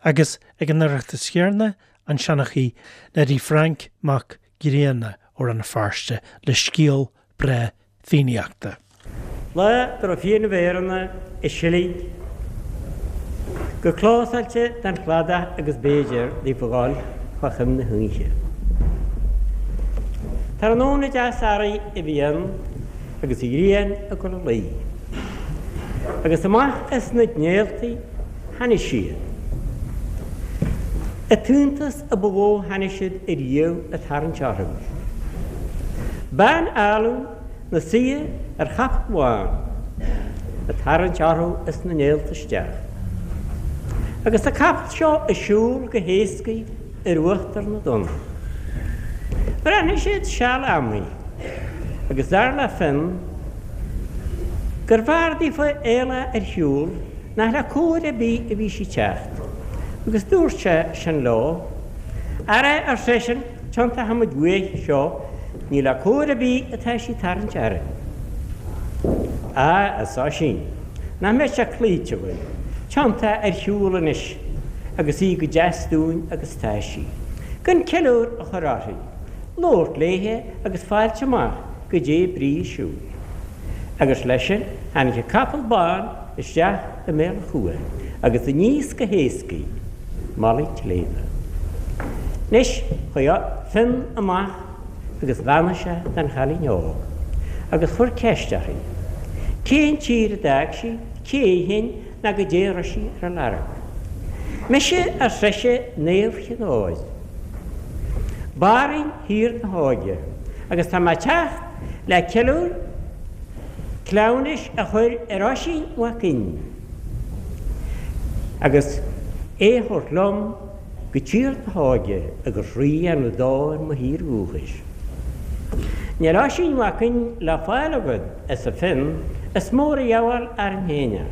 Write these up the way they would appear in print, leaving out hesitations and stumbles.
Agus ag an Oireachtas chéanna, an seanchaí Neidí Frainc Mac Grianna ó Rann na Feirste le scéal breá Fiannaíochta. Lá dá raibh Fiannaibh Éireanna i seilg go clósáilte den chladach agus b'fhéidir daofa dhul fá choim na hoíche. Tráthnóna deas earraigh a bhí ann agus an ghrian ag dul a luí. Agus amach as na néaltaí tháinig siad. An t-iontas a ba mhó tháinig siad ariamh ag tarraingt orthu. Bean álainn 'na suí ar chapall bhán ag tarraingt orthu as na néalta isteach. Agus an capall seo ag siúl go héascaidh ar uachtar na dtonn. Bhreathnaigh siad seal ama agus dar le Fionn gur bhfearr daofa éalá ar shiúl nach le cóir ar bith a bhí sí ag teacht, agus dúirt sé sin leo, Ara, ar seisean, tiontóidh muid uaidh seo, ní le cóir ar bith atá sí ag tarraingt orainn. Á, arsa Oisín, nach mbeadh sé cloíte againn, tiontá ar shiúl anois agus í go deas dúinn agus atá sí, gan ceiliúr a chur uirthi, labhairt léithe agus fáilt amach goidé brí a siúil. Agus leis sin tháinig an capall bán isteach i mbéal an chuain agus aníos go héascaidh mullaigh tsléibhe. Anois chuaigh Fionn amach agus bheannaigh sé don chailín óg agus chuir ceist uirthi cén tír a d'fhág sí, cé í féin ná goidé a raibh sí ar a lorg. Mise, ar sise, Naomh Chinn Óir, Banríon Thír na hÓige, agus tá mé ag teacht le ceiliúr cleamhnais a chur ar Oisín Mac Fhinn agus é a thabhairt liom go Tír na hÓige agus rí a dhéanamh dó ar mo thír dhúchais. Níl Oisín Mac Fhinn le fáil agat, arsa Fionn, is mór a dheabháil orainn féin é.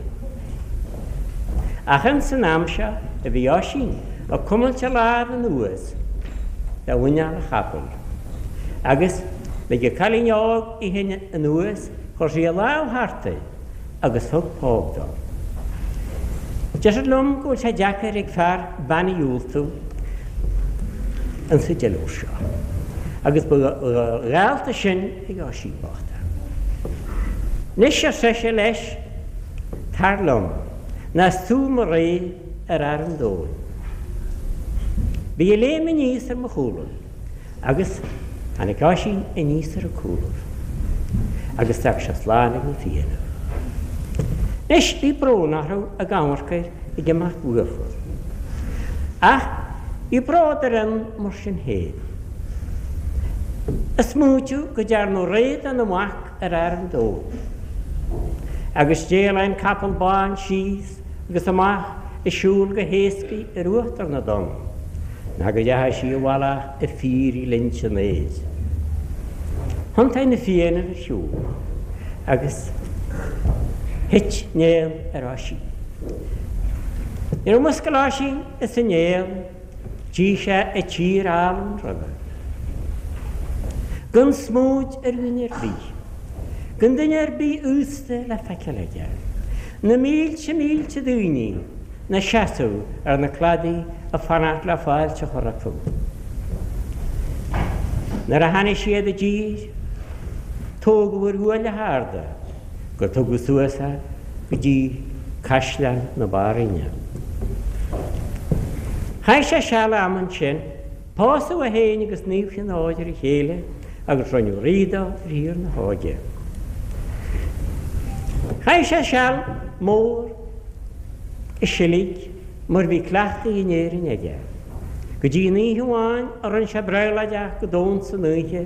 Ach ins an am seo a bhí Oisín ag cuimilt a lámh anuas de mhuineál a chapaill agus lig an cailín óg í féin anuas, chuir sí a lámh thart air agus thug póg dó. Deirtear liom go bhfuil sé deacair ag fear bean a dhiúltú insa deileadh seo, agus ba dhálta sin ag Oisín bocht é. Anois, ar sise leis, tar liom, nó is tú mo rí ar fhear an domhain. Bí ag léim aníos ar mo chúlaibh. Agus tháinig Oisín aníos ar a cúlaibh agus d'fhág sé slán ag na Fianna. Anois bhí brón orthu ag amharc air ag imeacht uafa. Ach bhí bród ar Fhionn mar sin féin. Ag smaointiú go dtearnadh rí dena mhac ar fhear an domhain. Agus d'éalaigh an capall bán síos agus amach ag siúl go héascaidh ar uachtar na dtonn, ná go dteachaidh sí i bhfolach i bhfíorghlinnte an aeir. Thiontaigh na Fianna ar shiúl agus thit néal ar Oisín. Nuair a mhuscail Oisín as an néal, Tchí sé an tír álainn roimhe. Gan smúid ar dhuine ar bith. Gan duine ar bith aosta le feiceáil aige. Na mílte mílte daoine 'na seasamh ar na cladaí ag fanacht le fáilte a chur rompu. Nuair a tháinig siad i dtír, tógadh ar ghuaille arda. gur tugadh suas é go dtí caisleán na Banríona. Chaith sé seal ama ansin, pósadh é féin agus Naomh Chinn Óir ar a chéile agus rinneadh rí dó ar Thír na hÓige. Chaith sé seal mór i seilg mar bhí cleachtaithe in Éirinn aige, go dtí an oíche amháin a rinne sé brabhláideach go domhan san oíche,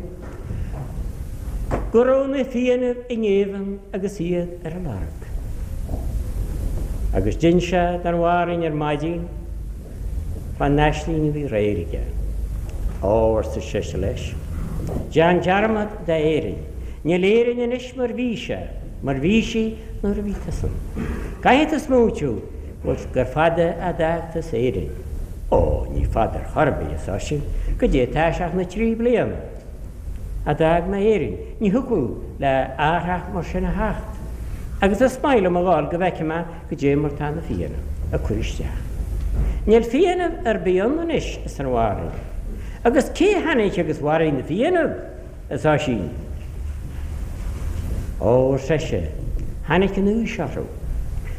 go raibh na Fiannaibh i ngéibheann agus iad ar a lorg. Agus d'inis sé don bhanríon ar maidin fán aisling a bhí aréir aige. Ó, arsa sise leis, déan dearmad d'Éirinn. Níl Éirinn anois mar bhí sé, mar bhí sí nuair a bhí tusa ann. Caithfidh tú smaointiú gur fada a d'fhág tusa Éirinn. Ó, ní fada ar chor ar bith, arsa Oisín, goidé atá sé ach na trí bliana. a d'fhág mé Éirinn, ní thiocfadh le athrach mar sin a theacht, agus is maith liom a dhul go bhfeicfidh mé goidé mar tá na Fianna ag cur isteach. Níl Fiannaibh ar bith ann anois, arsa an mháthair. Agus cé tháinig agus mharaigh na Fiannaibh? arsa Oisín. Ó, ar seisean, tháinig an aois orthu.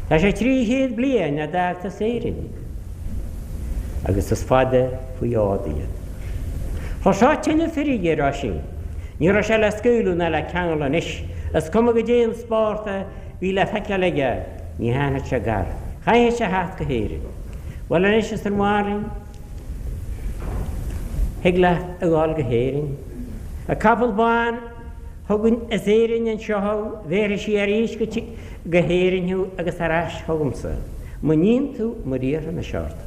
Tá sé 300 bliain ó d'fhágtas Éirinn. Agus is fada faoi fhód iad. Chuir seo tuilleadh feirge ar Oisín. Ní raibh sé le scaoileadh ná le ceangal anois. Is cuma goidé an spórt a bhí le feiceáil aige, ní tháinig sé gar. Chaithfeadh sé theacht go hÉirinn. Bhuel anois, arsa an mháthair, thig leat a dhul go hÉirinn. An capall bán a thugann as Éirinn anseo thú, bhéarfaidh sí arís go hÉirinn thú agus ar ais chugamsa, mura níonn tú mar iarrfaidh mise ort.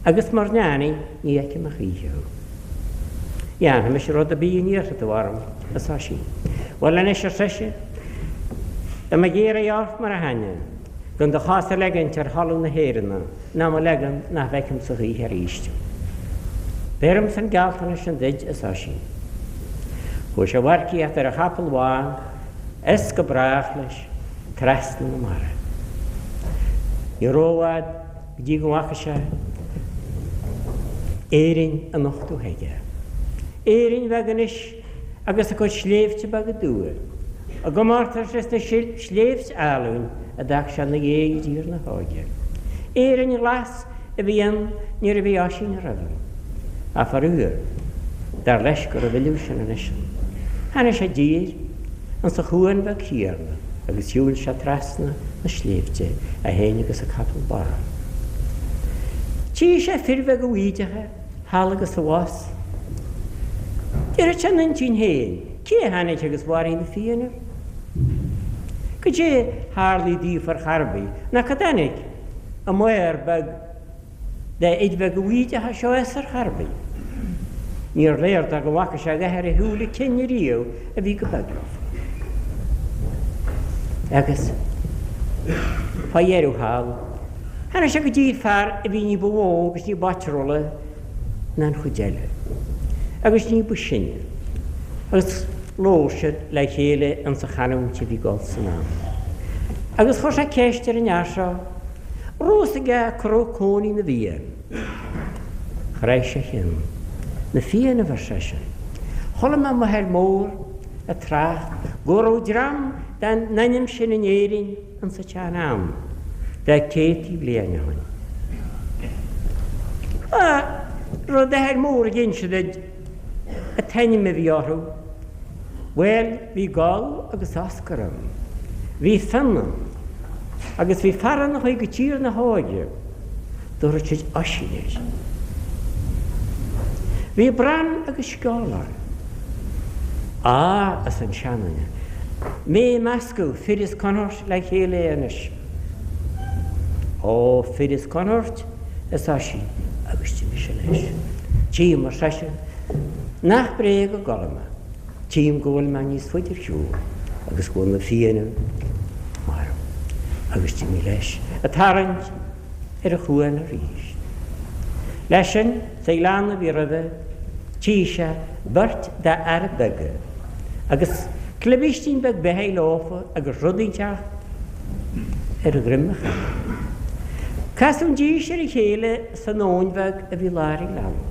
Agus mura ndéanaidh, ní fheicfidh mé choíche thú. Dhéanfaidh mise rud ar bith a n-iarrfaidh tú orm, arsa Oisín. Bhuel anois, ar seisean, tá mé ag iarraidh ort mar aithne, gan do chos a leagaint ar thalamh na hÉireann, ná mura leagann, nach bhfeicfeamsa choíche arís thú. Beirimse an gealltanas sin duid, arsa Oisín. Chuaigh sé a mharcaíocht ar a chapall bhán is go brách leis trasna na mara. Ní rófhad go dtí go bhfaca sé Éirinn á nochtadh chuige. Éirinn bheag anois agus a cuid sléibhte beaga dubha, i gcomórtas leis na sléibhte álainn a d'fhág sé ina dhiaidh i dTír na hÓige. Éirinn ghlas a bhí ann nuair a bhí Oisín roimhe. Ach faraor, dar leis go raibh a thuilleadh sin anois ann. Tháinig sé i dtír insa chuan bheag chéanna agus shiúil sé trasna na sléibhte, é féin agus a capall bán. Tchí sé fir bheaga bhídeacha thall agus abhus. Déarfadh sé ina intinn féin, cé a tháinig agus mharaigh na Fianna? Goidé tharlaigh daofa ar chor ar bith, ná cá dtáinig an maor beag de fhir bheaga bhídeacha seo as ar chor ar bith? Níor léir dó go bhfaca sé a dhath ar a shúile cinn ariamh a bhí chomh beag leofa. Agus fá dheireadh thall, tháinig sé go dtí fear a bhí ní ba mhó agus ní b'áitriúla ná an chuid eile, agus ní ba shine, agus labhair siad le chéile insa chanúint a bhí ag dul san am. Agus chuir sé ceist ar an fhear seo, raibh fhios aige cá raibh cónaí na bhFiann. Chraith sé a cheann. Na Fiannaibh, ar seisean. Chuala mé m'athair mór ag trácht go raibh dream den ainm sin in Éirinn insa tsean-am, de céadtaí bliain ó shin. Raibh d'athair mór ag inse duit an t-ainm a bhí orthu. Bhuel, bhí Goll agus Oscar ann. Bhí Fionn ann. Agus bhí fear ann a chuaigh go Tír na hÓige. Dtabharfadh siad Oisín air. Bhí Bran agus Sceolang. Á, arsa an seanduine, mé ag meascadh fir as Connacht le chéile anois. Ó, fir as Connacht, arsa Oisín, agus d'imigh sé leis. Tchím, ar seisean, nach bréag a gcodladh mé. Tchím go bhfuil mé níos faide ar shiúl agus go bhfuil na Fianna marbh. Agus d'imigh leis, ag tarraingt ar an chuan arís. Leis sin, sa ghleann a bhí roimhe, tchí sé beirt d'fhearaibh beaga, agus clibístín beag beathaidh leofa agus rud inteacht ar dhroim an chapaill. Casadh dís ar a chéile san abhainn bheag a bhí lár an ghleanna,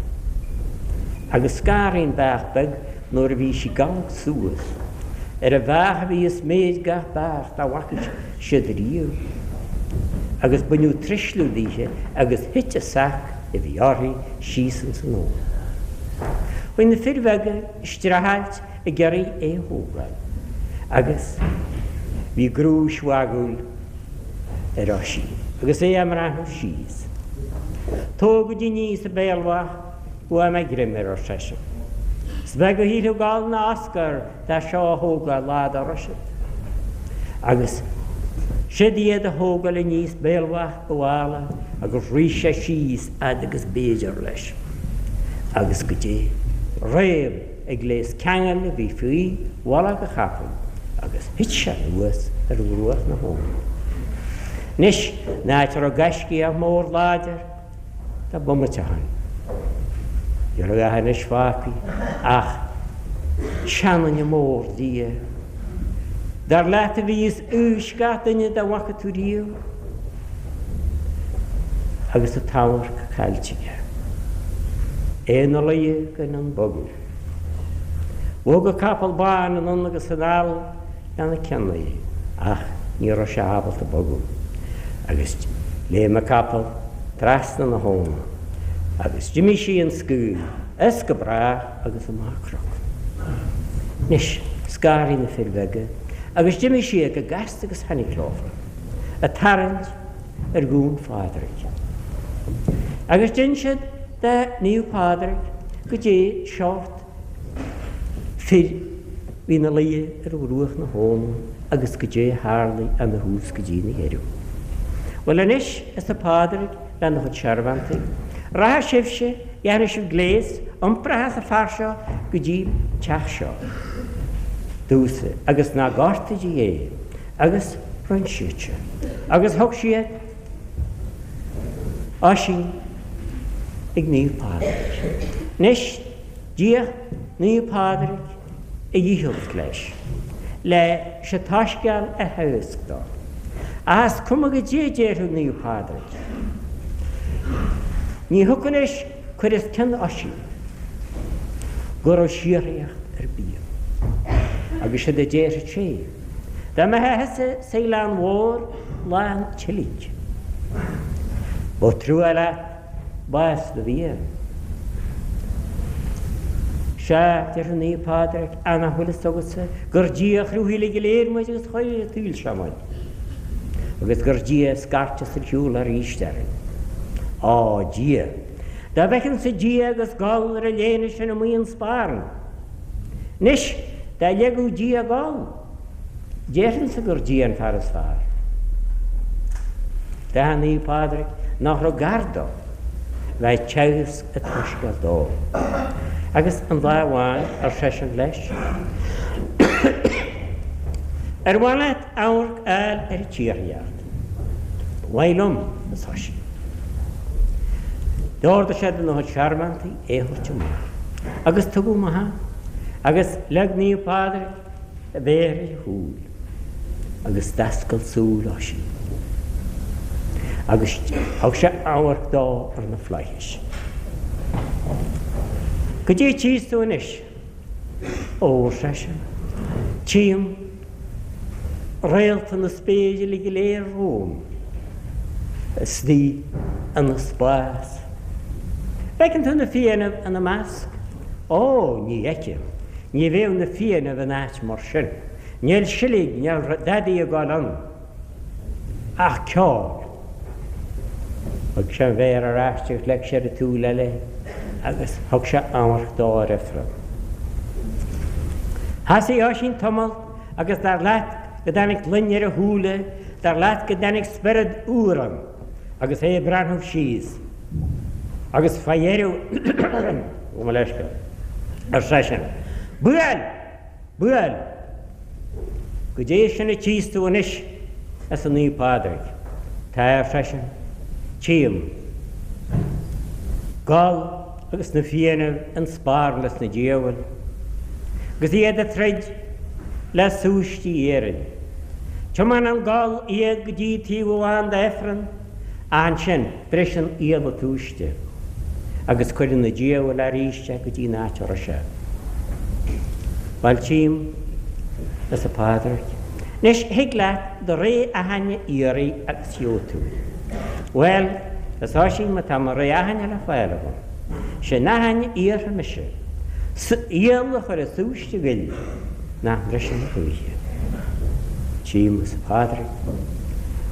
agus scanraigh an beach beag nuair a bhí sí ag amharc suas ar an bheach a bhí is méid gach beach dá bhfaca siad riamh, agus baineadh truisliú daoithe agus thit an sac a bhí uirthi síos ins an abhainn. Chuaigh na fir bheaga ag streachailt ag iarraidh é a thógáil, agus bhí grúis mhagúil ar Oisín agus é á mbreathnú síos. Tógaidí aníos an béalbhach go bhfaighidh mé greim air, ar seisean. Is beag a shílfeadh Goll ná Oscar de seo a thógáil lá dá raibh siad. Agus siod iad a thógáil aníos béalbhach an mhála agus rith sé síos fhad agus b'fhéidir leis. Agus goidé réab ag gléas ceangail a bhí faoi mhullach a chapaill agus thit sé anuas ar bhruach na habhann. Anois, in áit a raibh gaiscíoch mór láidir, Tá bomaite ó shin. Ní raibh a dhath anois fágtha ach seanduine mór liath. Dar leat a bhí os aois gach duine dá bhfaca tú riamh. Agus an t-amharc caillte aige. É ina luí gan in ann bogadh. Bhog an capall bán anonn agus anall lena cionnaí ach ní raibh sé ábalta bogadh. Agus léim an capall trasna na habhna agus d'imigh sí an scaoll as go brách agus amach an cnoc. Anois, scanraigh na fir bheaga agus d'imigh siad go gasta agus tháinig leofa, ag tarraingt ar ghuain Phádraig. Agus d'inis siad do Naomh Pádraig goidé seort fir bhí ina luí ar bhruach na habhna agus goidé a tharlaigh óna thús go dtí na dheireadh. Bhuel anois, arsa Pádraig lena chuid searbhóntaí, rachaidh sibhse, dhéanfaidh sibh gléas, iompróidh an fear seo go dtí an teach seo domhsa agus ná gortaígí é. Agus rinn siad sin. Agus thug siad Oisín ag Naomh Pádraig. Anois, d'fhéach Naomh Pádraig a dhícheall leis, leis an tSoiscéal a theagasc dó. Ach is cuma goidé a déarfadh Naomh Pádraig, ní thiocfadh leis cur os cionn Oisín go raibh síoraíocht ar bith ann. Agus séard a déarfadh sé. Dá mbeifeá thusa sa Ghleann Mhór lán tseilg. Ba trua leat bás do bhia. Sea, déarfadh Naomh Pádraig, ach nach bhfuil fhios agatsa gur Dia a chruthaigh uilig go léir muid agus a chuir ar an tsaol seo muid, agus gur Dia a scairteas ar shiúl arís orainn. Á, Dia! Dá bhfeicinnse Dia agus Goll ar an léine sin amuigh an sparán! Anois, dá leigeadh Dia Goll, déarfainnse gur Dia an fear is fearr. D'aithin Naomh Pádraig nach raibh gar dó bheith ag teagasc an tSoiscéil dó. Agus an lá amháin, ar seisean leis, Ar mhaith leat amharc a fháil ar an tsíoraíocht? Ba mhaith liom, arsa Oisín. D'ordaigh sé do na searbhóntaí é a thabhairt amach. Agus tugadh amach é, agus leag Naomh Pádraig a mhéar ar a shúil, agus d'oscail súil Oisín, agus thug sé amharc dó ar na flaithis. Goidé a tchíos tú anois? Ó, ar seisean, tchím réalta na spéire uilig go léir romham, istigh ina spás. Bhfeiceann tú na Fiannaibh ina measc? Ó, ní fheicim. Ní bheadh na Fiannaibh in áit mar sin. Níl silig, níl dadaí ag gabháil ann. Ach ceol. Thug sé an mhéar ar ais agus leag sé ar an tsúil eile agus thug sé amharc dó ar Ifreann. Thosaigh Oisín tamall agus dar leat go dtáinig gloine ar a shúile, dar leat go dtáinig spiorad úr ann agus é ag breathnú síos. Agus fá dheireadh, gabh mo leithscéal, ar seisean, Buail! Buail! Goidé sin a tchíos tú anois, arsa Naomh Pádraig. Tá, ar seisean, tchím Goll agus na Fiannaibh in sparán leis na diabhail, agus iad ag troid le súistí iarainn. Tiomáineann Goll iad go dtí taobh amháin d'Ifreann, ach ansin briseann iallach an tsúiste agus cuireann na diabhail arís é go dtí an áit a raibh sé. Bhuel, tchím, arsa Pádraig. Anois, thig leat do rogha aithinne a iarraidh agus gheobhaidh tú í. Bhuel, arsa Oisín, má tá mo rogha aithinne le fáil agam, sé an aithinne a iarrfaidh mise, iallach a chur i súiste Ghoill nach mbriseann a choíche. Tchím, arsa Pádraig,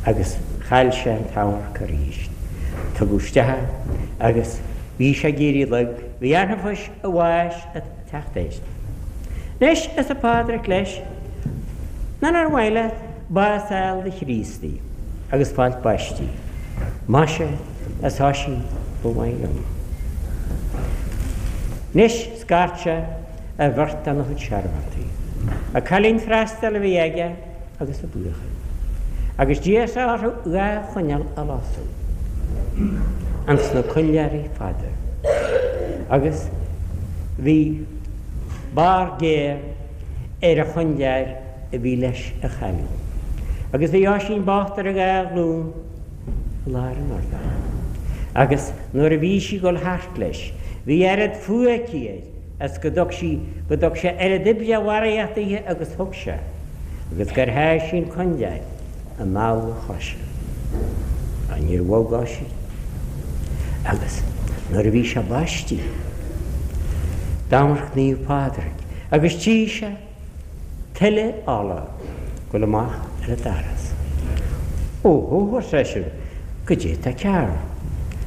agus chaill sé an t-amharc arís. Tugadh isteach é agus bhí sé ag éirí lag, bhí anfais a bháis ag teacht air. Anois, arsa Pádraig leis, nó nár mhaith leat bás a fháil do Chríostaí agus fáilt baistí? Maise, arsa Oisín, ba mhaith liom. Anois, scairt sé ar bheirt dena chuid searbhóntaí. An cailín freastail a bhí aige agus a buachaill. Agus d'iarr sé orthu dha choinneal a lasadh ins na coinnleoirí fada. Agus bhí barr géar ar an choinnleoir a bhí leis an chailín. Agus bhí Oisín bocht ar a dhá ghlúin i lár an urláir. Agus nuair a bhí sí ag dul thart leis, bhí oiread fuath aici air as go dtug sí, go dtug sé oiread oibre mharaíochta dithe agus thug sé, agus gur sháigh sí an coinnleáir i mball a choise. Ach níor bhog Oisín. Agus nuair a bhí sé baistithe, d'amharc Naomh Pádraig agus tchí sé tuile ola dul amach ar an doras. Ó hó, ar seisean, goidé tá cearr?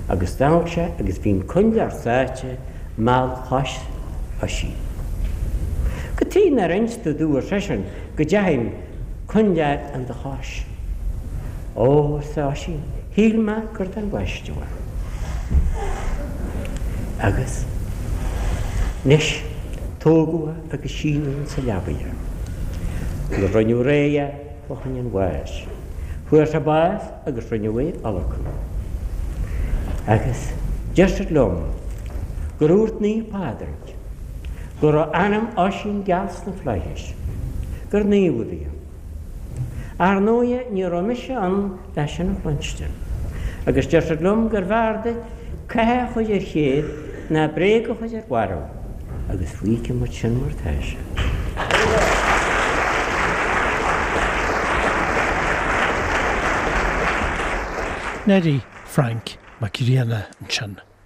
Agus d'amharc sé agus bhí an coinnleáir sáite i mball chois Oisín. Cad tuighe nár inis tú domh, ar seisean, go dteachaidh an coinnleáir in do chois? Ó, arsa Oisín, shíl mé gur don bhaisteadh é. Agus anois tógadh é agus síneadh insa leabaidh é. Nuair rinneadh réidh é fá choinne an bháis. Fuair sé bás agus rinneadh é a adhlacadh. Agus deir siad liom gur dhúirt Naomh Pádraig go raibh anam Oisín geal sna flaithis, gur naomh a bhí ann. Ar ndóighe ní raibh mise ann le sin a chluinstin. Agus deir siad liom gurbh fhearr duit cath a chur ar chéad ná bréag a chur ar mharbh, agus fágfaidh muid sin mar tá sé. Neidí Frainc Mac Grianna ansin.